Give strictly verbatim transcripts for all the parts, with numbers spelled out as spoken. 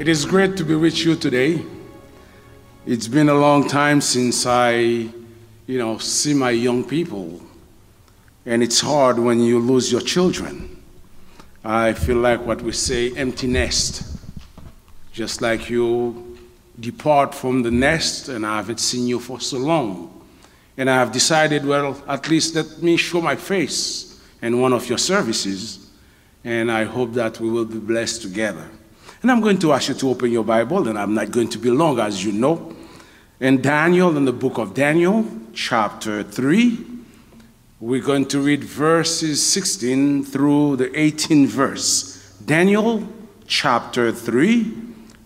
It is great to be with you today. It's been a long time since I, you know, see my young people. And it's hard when you lose your children. I feel like what we say, empty nest. Just like you depart from the nest and I haven't seen you for so long. And I have decided, well, at least let me show my face in one of your services. And I hope that we will be blessed together. And I'm going to ask you to open your Bible, and I'm not going to be long, as you know. In Daniel, in the book of Daniel, chapter three, we're going to read verses sixteen through the eighteen verse. Daniel chapter three,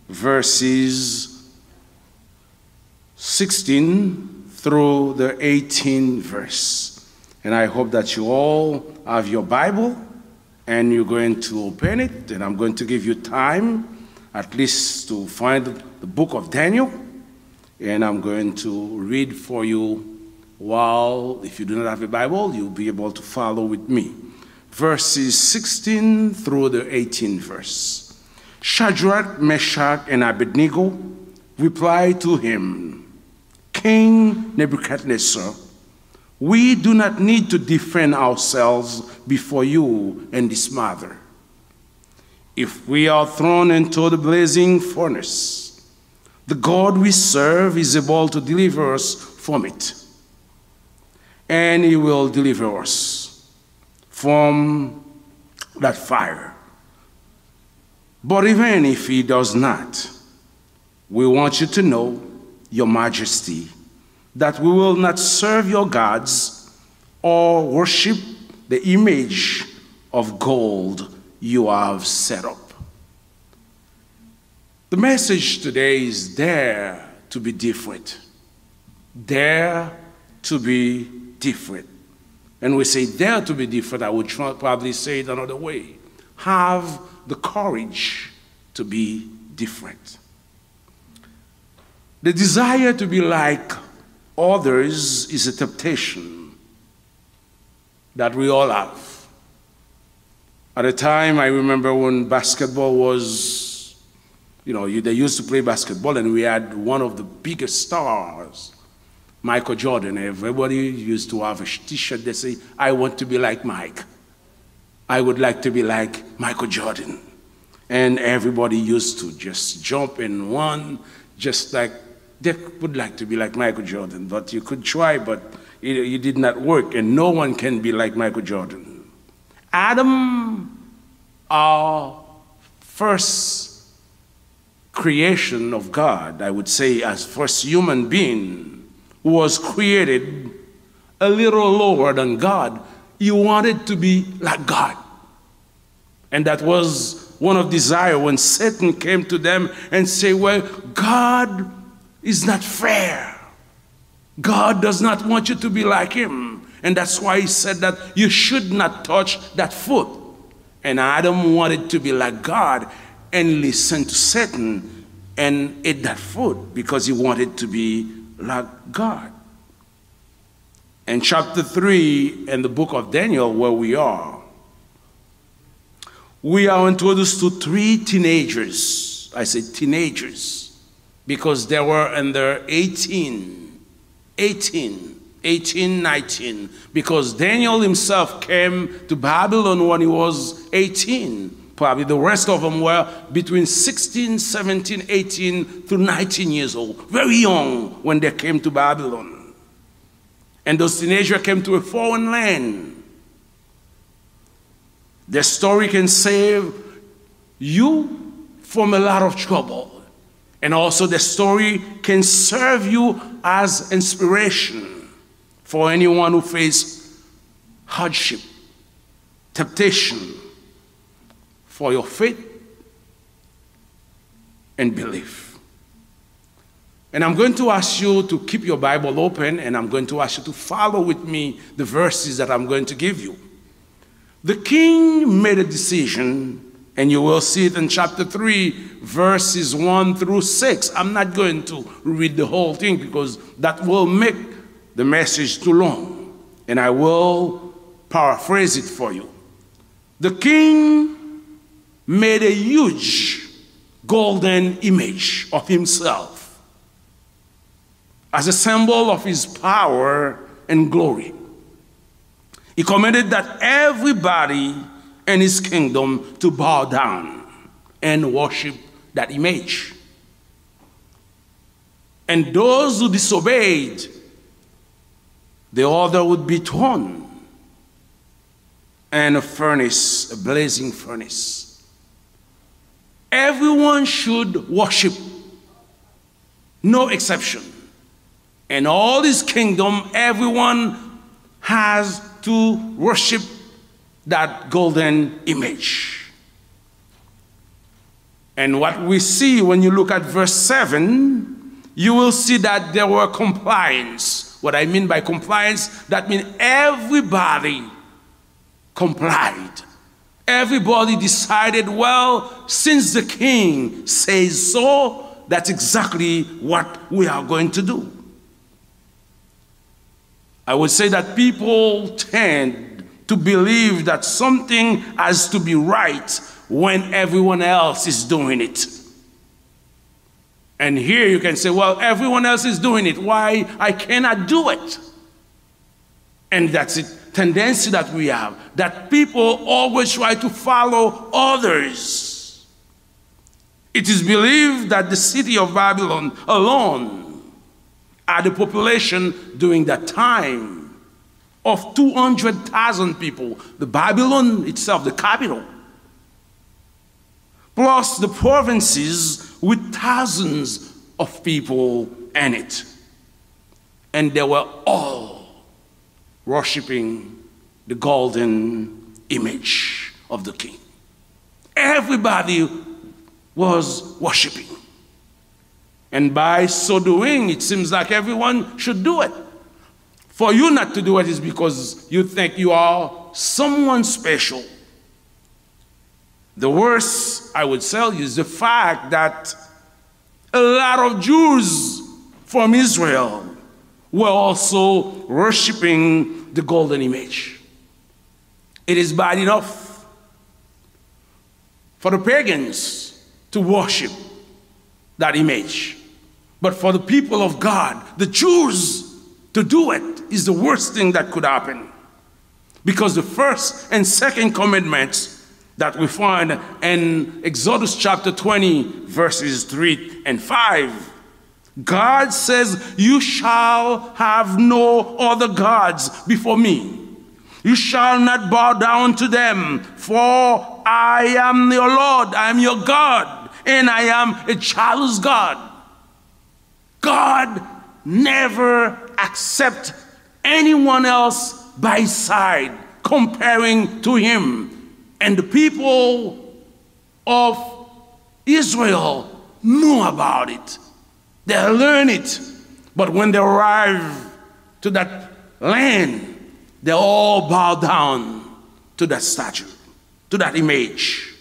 verses sixteen through the eighteen verse. And I hope that you all have your Bible and you're going to open it. And I'm going to give you time at least to find the book of Daniel. And I'm going to read for you while, if you do not have a Bible, you'll be able to follow with me. Verses sixteen through the eighteen verse. Shadrach, Meshach, and Abednego replied to him, King Nebuchadnezzar, we do not need to defend ourselves before you and this matter. If we are thrown into the blazing furnace, the God we serve is able to deliver us from it, and he will deliver us from that fire. But even if he does not, we want you to know, Your Majesty, that we will not serve your gods or worship the image of gold you have set up. The message today is dare to be different. Dare to be different. And we say dare to be different, I would tr- probably say it another way. Have the courage to be different. The desire to be like others is a temptation that we all have. At a time, I remember when basketball was, you know, you, they used to play basketball, and we had one of the biggest stars, Michael Jordan. Everybody used to have a t shirt that say, I want to be like Mike. I would like to be like Michael Jordan. And everybody used to just jump and run, just like they would like to be like Michael Jordan. But you could try, but it, it did not work, and no one can be like Michael Jordan. Adam, our first creation of God, I would say, as first human being, was created a little lower than God. He wanted to be like God. And that was one of desire when Satan came to them and say, well, God is not fair. God does not want you to be like him. And that's why he said that you should not touch that fruit. And Adam wanted to be like God and listened to Satan and ate that fruit because he wanted to be like God. In chapter three in the book of Daniel, where we are, we are introduced to three teenagers. I say teenagers because they were in their eighteen, eighteen, eighteen, nineteen, because Daniel himself came to Babylon when he was eighteen. Probably the rest of them were between sixteen, seventeen, eighteen to nineteen years old. Very young when they came to Babylon. And those teenagers came to a foreign land. The story can save you from a lot of trouble. And also, the story can serve you as inspiration for anyone who face hardship, temptation, for your faith and belief. And I'm going to ask you to keep your Bible open, and I'm going to ask you to follow with me the verses that I'm going to give you. The king made a decision, and you will see it in chapter three, verses one through six. I'm not going to read the whole thing because that will make the message too long, and I will paraphrase it for you. The king made a huge golden image of himself as a symbol of his power and glory. He commanded that everybody in his kingdom to bow down and worship that image. And those who disobeyed, the order would be thrown in a furnace, a blazing furnace. Everyone should worship, no exception. In all this kingdom, everyone has to worship that golden image. And what we see when you look at verse seven, you will see that there were compliance. What I mean by compliance, that means everybody complied. Everybody decided, well, since the king says so, that's exactly what we are going to do. I would say that people tend to believe that something has to be right when everyone else is doing it. And here you can say, well, everyone else is doing it. Why I cannot do it? And that's a tendency that we have, that people always try to follow others. It is believed that the city of Babylon alone had a population during that time of two hundred thousand people. The Babylon itself, the capital, plus the provinces with thousands of people in it. And they were all worshiping the golden image of the king. Everybody was worshiping. And by so doing, it seems like everyone should do it. For you not to do it is because you think you are someone special. The worst, I would tell you, is the fact that a lot of Jews from Israel were also worshiping the golden image. It is bad enough for the pagans to worship that image. But for the people of God, the Jews, to do it is the worst thing that could happen. Because the first and second commandments that we find in Exodus chapter twenty, verses three and five, God says, you shall have no other gods before me. You shall not bow down to them, for I am your Lord, I am your God, and I am a jealous God. God never accept anyone else by side comparing to him. And the people of Israel know about it. They learn it. But when they arrive to that land, they all bow down to that statue, to that image.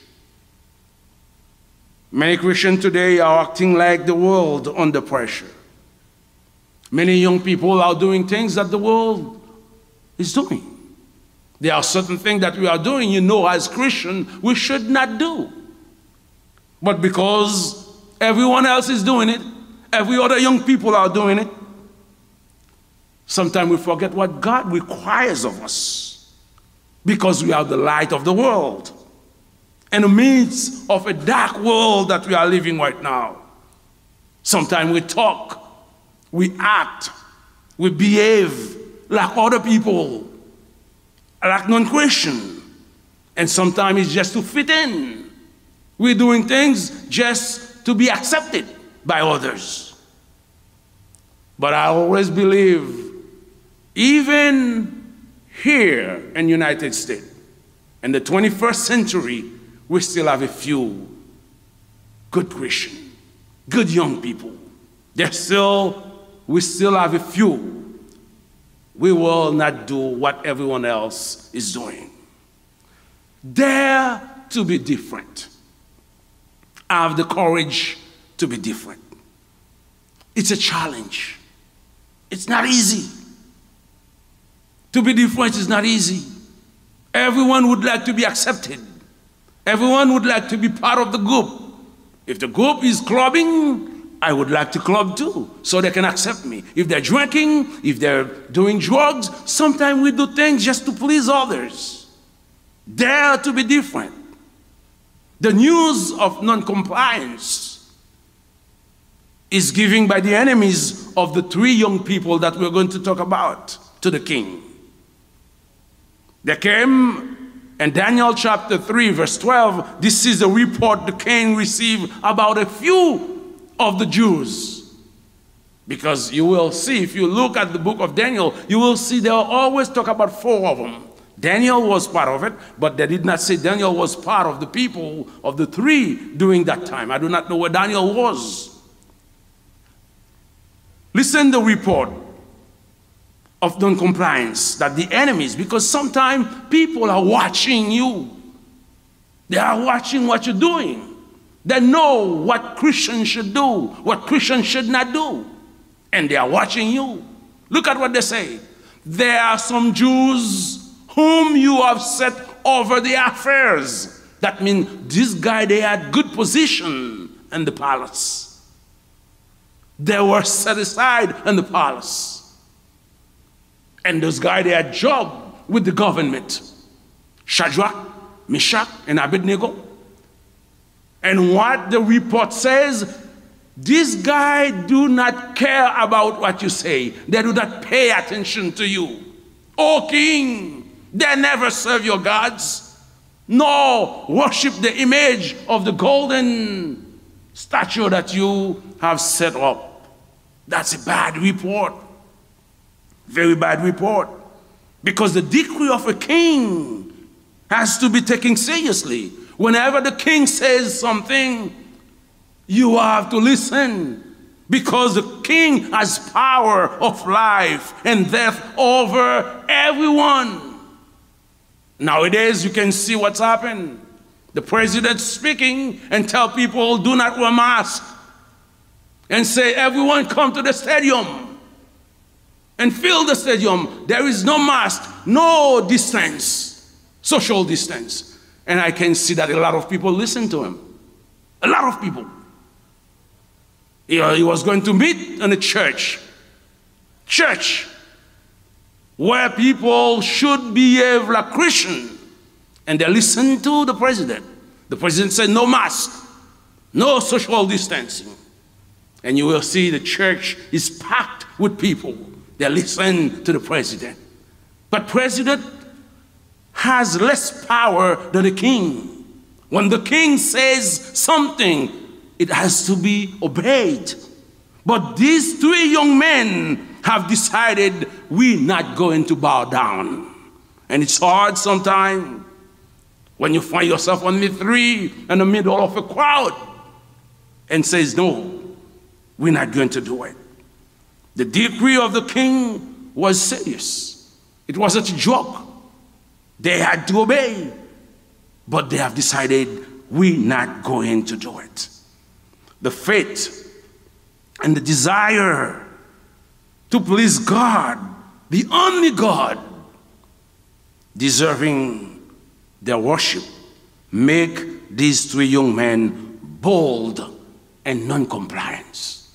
Many Christians today are acting like the world under pressure. Many young people are doing things that the world is doing. There are certain things that we are doing, you know, as Christian, we should not do. But because everyone else is doing it, every other young people are doing it, sometimes we forget what God requires of us because we are the light of the world. In the midst of a dark world that we are living right now, sometimes we talk, we act, we behave like other people, like non-Christian. And sometimes it's just to fit in. We're doing things just to be accepted by others. But I always believe, even here in United States, in the twenty-first century, we still have a few good Christian, good young people. There's still, we still have a few. We will not do what everyone else is doing. Dare to be different. Have the courage to be different. It's a challenge. It's not easy. To be different is not easy. Everyone would like to be accepted. Everyone would like to be part of the group. If the group is clubbing, I would like to club too, so they can accept me. If they're drinking, if they're doing drugs, sometimes we do things just to please others. Dare to be different. The news of non-compliance is given by the enemies of the three young people that we're going to talk about to the king. They came in Daniel chapter three, verse twelve. This is the report the king received about a few of the Jews. Because you will see, if you look at the book of Daniel, you will see they always talk about four of them. Daniel was part of it, but they did not say Daniel was part of the people of the three during that time. I do not know where Daniel was. Listen the report of non-compliance that the enemies, because sometimes people are watching you. They are watching what you're doing. They know what Christians should do, what Christians should not do. And they are watching you. Look at what they say. There are some Jews whom you have set over the affairs. That means this guy, they had good position in the palace. They were set aside in the palace. And those guys, they had job with the government. Shadrach, Meshach, and Abednego. And what the report says, this guy do not care about what you say. They do not pay attention to you. O king, they never serve your gods, nor worship the image of the golden statue that you have set up. That's a bad report. Very bad report. Because the decree of a king has to be taken seriously. Whenever the king says something, you have to listen. Because the king has power of life and death over everyone. Nowadays, you can see what's happened. The president speaking and tell people, "Do not wear mask." And say, "Everyone come to the stadium and fill the stadium. There is no mask, no distance, social distance." And I can see that a lot of people listen to him. A lot of people. He, he was going to meet in a church. Church where people should behave like Christian. And they listen to the president. The president said, "No mask, no social distancing." And you will see the church is packed with people. They listen to the president. But president has less power than the king. When the king says something, it has to be obeyed. But these three young men have decided, "We're not going to bow down." And it's hard sometimes when you find yourself on the three in the middle of a crowd and says, "No, we're not going to do it." The decree of the king was serious. It wasn't a joke. They had to obey, but they have decided, "We're not going to do it." The faith and the desire to please God, the only God deserving their worship, make these three young men bold and non-compliance.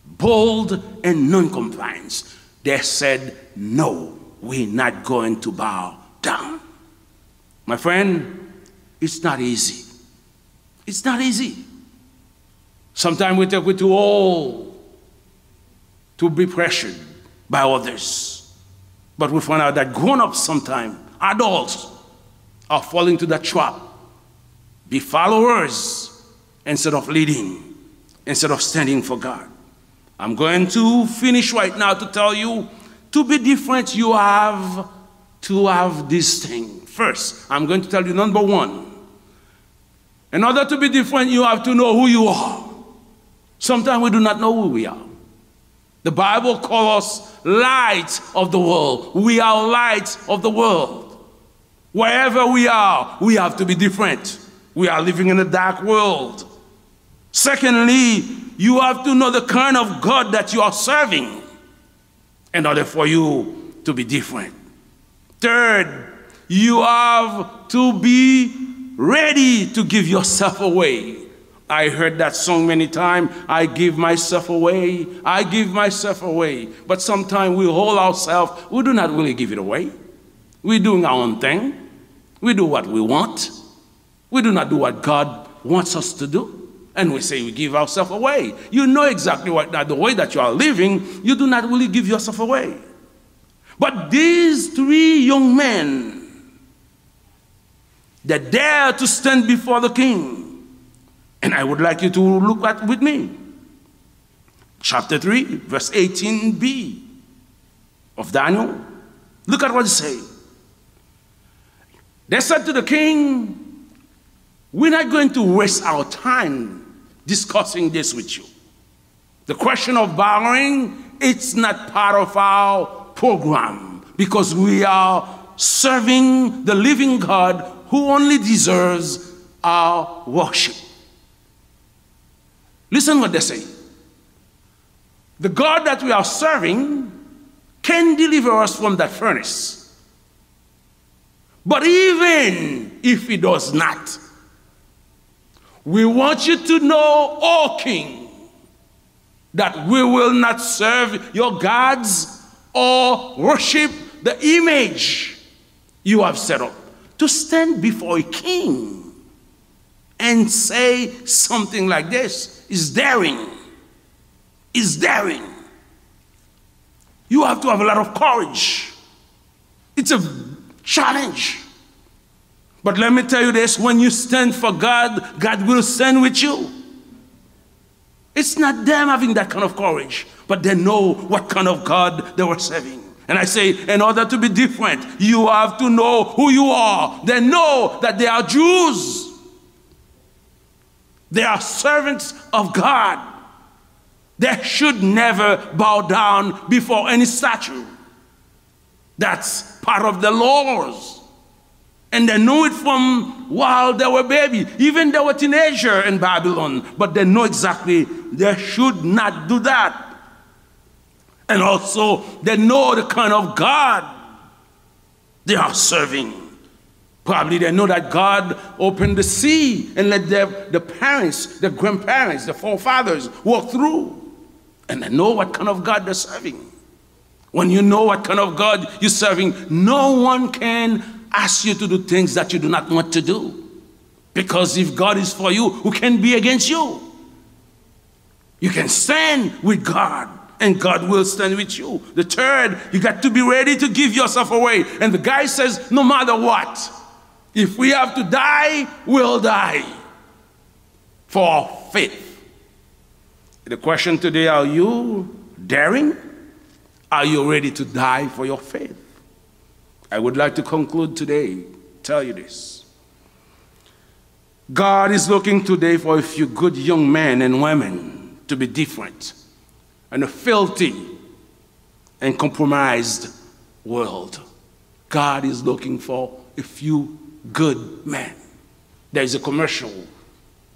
Bold and non-compliance. They said, "No, we're not going to bow down." My friend, it's not easy. It's not easy. Sometimes we think we're too old to be pressured by others. But we find out that grown-ups sometimes, adults, are falling to that trap. Be followers instead of leading, instead of standing for God. I'm going to finish right now to tell you, to be different, you have to have this thing. First, I'm going to tell you number one. In order to be different, you have to know who you are. Sometimes we do not know who we are. The Bible calls us light of the world. We are light of the world. Wherever we are, we have to be different. We are living in a dark world. Secondly, you have to know the kind of God that you are serving in order for you to be different. Third, you have to be ready to give yourself away. I heard that song many times. I give myself away. I give myself away. But sometimes we hold ourselves, we do not really give it away. We're doing our own thing. We do what we want. We do not do what God wants us to do. And we say we give ourselves away. You know exactly what that the way that you are living, you do not really give yourself away. But these three young men that dare to stand before the king, and I would like you to look at with me chapter three, verse eighteen b of Daniel. Look at what it says. They said to the king, "We're not going to waste our time discussing this with you. The question of bowing, it's not part of our program because we are serving the living God who only deserves our worship." Listen what they say. The God that we are serving can deliver us from that furnace. But even if he does not, we want you to know, O king, that we will not serve your gods or worship the image you have set up. To stand before a king and say something like this is daring. Is daring. You have to have a lot of courage. It's a challenge. But let me tell you this, when you stand for God, God will stand with you. It's not them having that kind of courage, but they know what kind of God they were serving. And I say, in order to be different, you have to know who you are. They know that they are Jews. They are servants of God. They should never bow down before any statue. That's part of the laws. And they know it from while they were baby. Even they were teenager in Babylon. But they know exactly they should not do that. And also, they know the kind of God they are serving. Probably they know that God opened the sea and let their, the parents, the grandparents, the forefathers walk through. And they know what kind of God they're serving. When you know what kind of God you're serving, no one can ask you to do things that you do not want to do. Because if God is for you, who can be against you? You can stand with God, and God will stand with you. The third, you got to be ready to give yourself away. And the guy says, "No matter what, if we have to die, we'll die for our faith." The question today, are you daring? Are you ready to die for your faith? I would like to conclude today, tell you this. God is looking today for a few good young men and women to be different in a filthy and compromised world. God is looking for a few good men. There is a commercial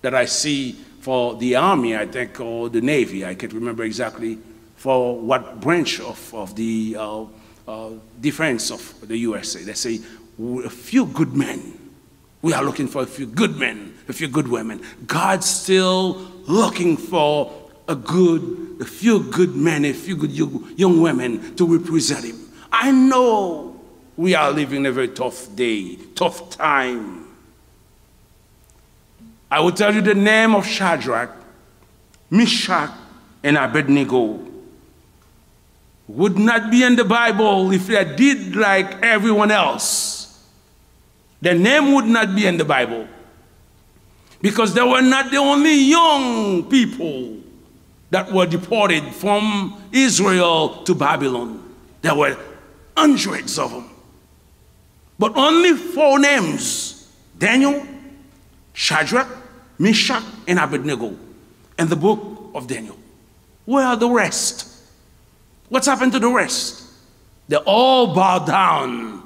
that I see for the army, I think, or the navy, I can't remember exactly, for what branch of, of the uh, uh, defense of the U S A. They say, "A few good men." We are looking for a few good men, a few good women. God's still looking for a good, a few good men, a few good young, young women to represent him. I know we are living in a very tough day, tough time. I will tell you the name of Shadrach, Meshach, and Abednego would not be in the Bible if they did like everyone else. Their name would not be in the Bible because they were not the only young people that were deported from Israel to Babylon. There were hundreds of them. But only four names: Daniel, Shadrach, Meshach, and Abednego in the book of Daniel. Where are the rest? What's happened to the rest? They all bow down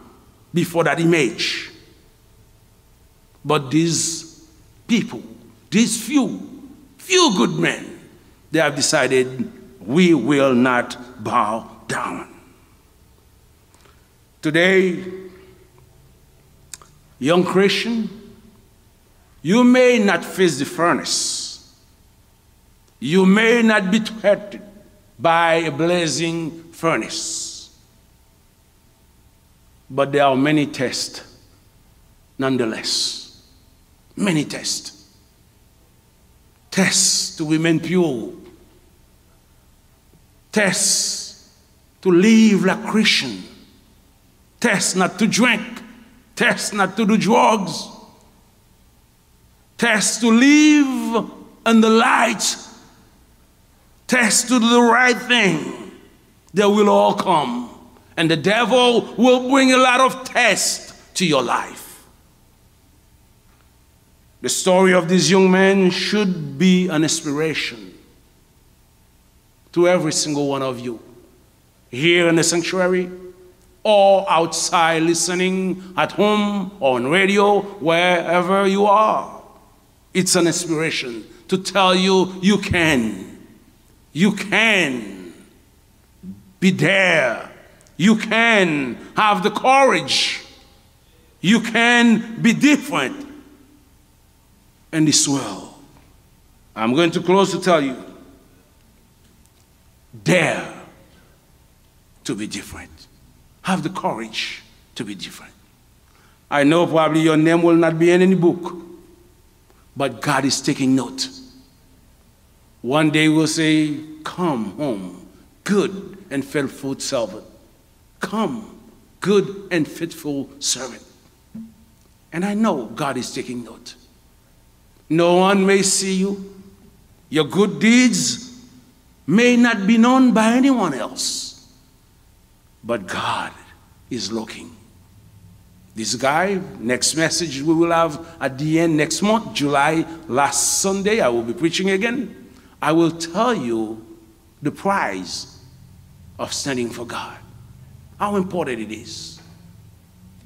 before that image. But these people, these few, few good men, they have decided, "We will not bow down." Today, young Christian, you may not face the furnace, You may not be threatened by a blazing furnace, but there are many tests nonetheless. Many tests. Tests to remain pure. Tests to live like Christian. Tests not to drink. Tests not to do drugs. Tests to live in the light. Tests to do the right thing. They will all come. And the devil will bring a lot of tests to your life. The story of this young man should be an inspiration to every single one of you here in the sanctuary or outside listening at home or on radio, wherever you are. It's an inspiration to tell you you can. You can be there. You can have the courage. You can be different in this world. I'm going to close to tell you, dare to be different. Have the courage to be different. I know probably your name will not be in any book, but God is taking note. One day he will say, "Come home, good and faithful servant. Come, good and faithful servant." And I know God is taking note. No one may see you. Your good deeds may not be known by anyone else. But God is looking. This guy, next message we will have at the end next month, July, last Sunday, I will be preaching again. I will tell you the price of standing for God. How important it is.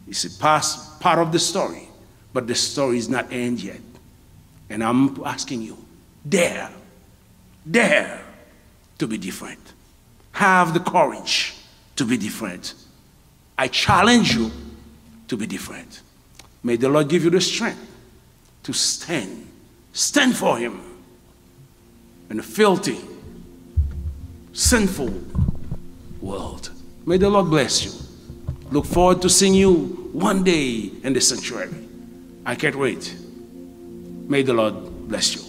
It's a past part of the story, but the story is not end yet. And I'm asking you, dare, dare to be different. Have the courage to be different. I challenge you to be different. May the Lord give you the strength to stand. Stand for Him in a filthy, sinful world. May the Lord bless you. Look forward to seeing you one day in the sanctuary. I can't wait. May the Lord bless you.